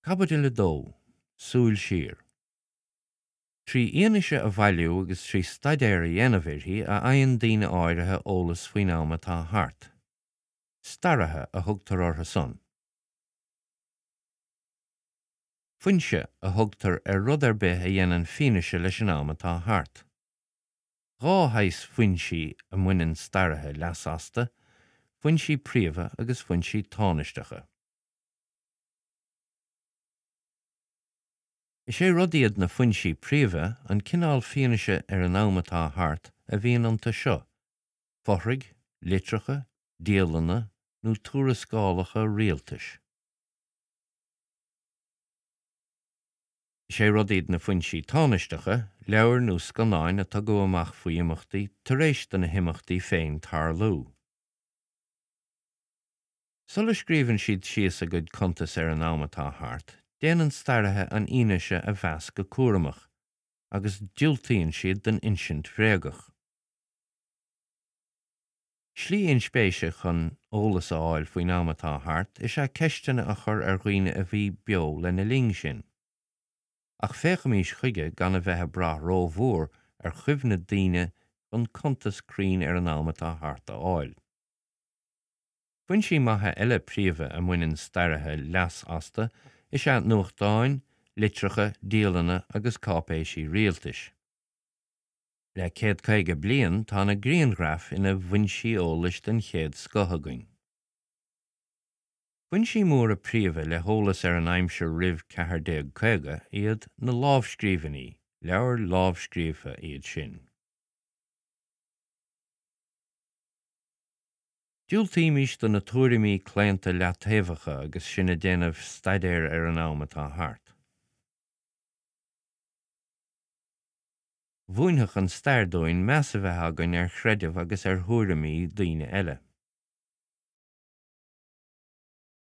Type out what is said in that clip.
Caibidil 2, Súil Siar. Trí fhianaise a bhailiú agus trí staidéar a dhéanamh uirthi a fhaigheann daoine áirithe eolas faoin am atá thart. Staraithe a thugtar orthu san. Foinse a thugtar ar rud ar bith a dhéanann fianaise leis an am atá thart. Dhá shaghas foinsí a mbaineann staraithe leas astu, foinsí príomha agus foinsí tánaisteacha. Is é rud iad na foinsí príomha an cineál fianaise ar an am atá thart a bhíonn iontu seo, fothraigh, litreacha, dialanna nó tuarascálacha rialtais. Is é rud iad na foinsí tánaisteacha, leabhair nó scannáin a tugadh amach faoi imeachtaí tar éis do na himeachtaí féin tarlú. Sula scríobhann siad síos a gcuid cuntas ar an am atá thart, déanann staraithe an fhianaise a mheas go cúramach, agus diúltaíonn siad don insint bhréagach. Slí inspéise chun eolas a fháil faoin am atá thart is ea ceisteanna a chur ar dhaoine a bhí beo lena linn sin. Ach féachaimís chuige gan a bheith ag brath rómhór ar chuimhne daoine chun cuntas cruinn ar an am atá thart a fháil. Foinsí maithe eile príomha a mbaineann staraithe leas astu is ea nuachtáin, litreacha, dialanna agus cáipéisí rialtais. Le 150 bliain tá na grianghraif ina bhfoinsí eolais den chéad scoth againn. Foinsí móra príomha le heolas ar an aimsir roimh 1450 iad na lámhscríbhinní, leabhair lámhscríofa iad sin. Diúltaímis do na tuairimí claonta leataobhacha agus sinn ag déanamh staidéir ar an am atá thart. Mhúinfeadh an stair dúinn meas a bheith againn ar chreideamh agus ar thuairimí daoine eile.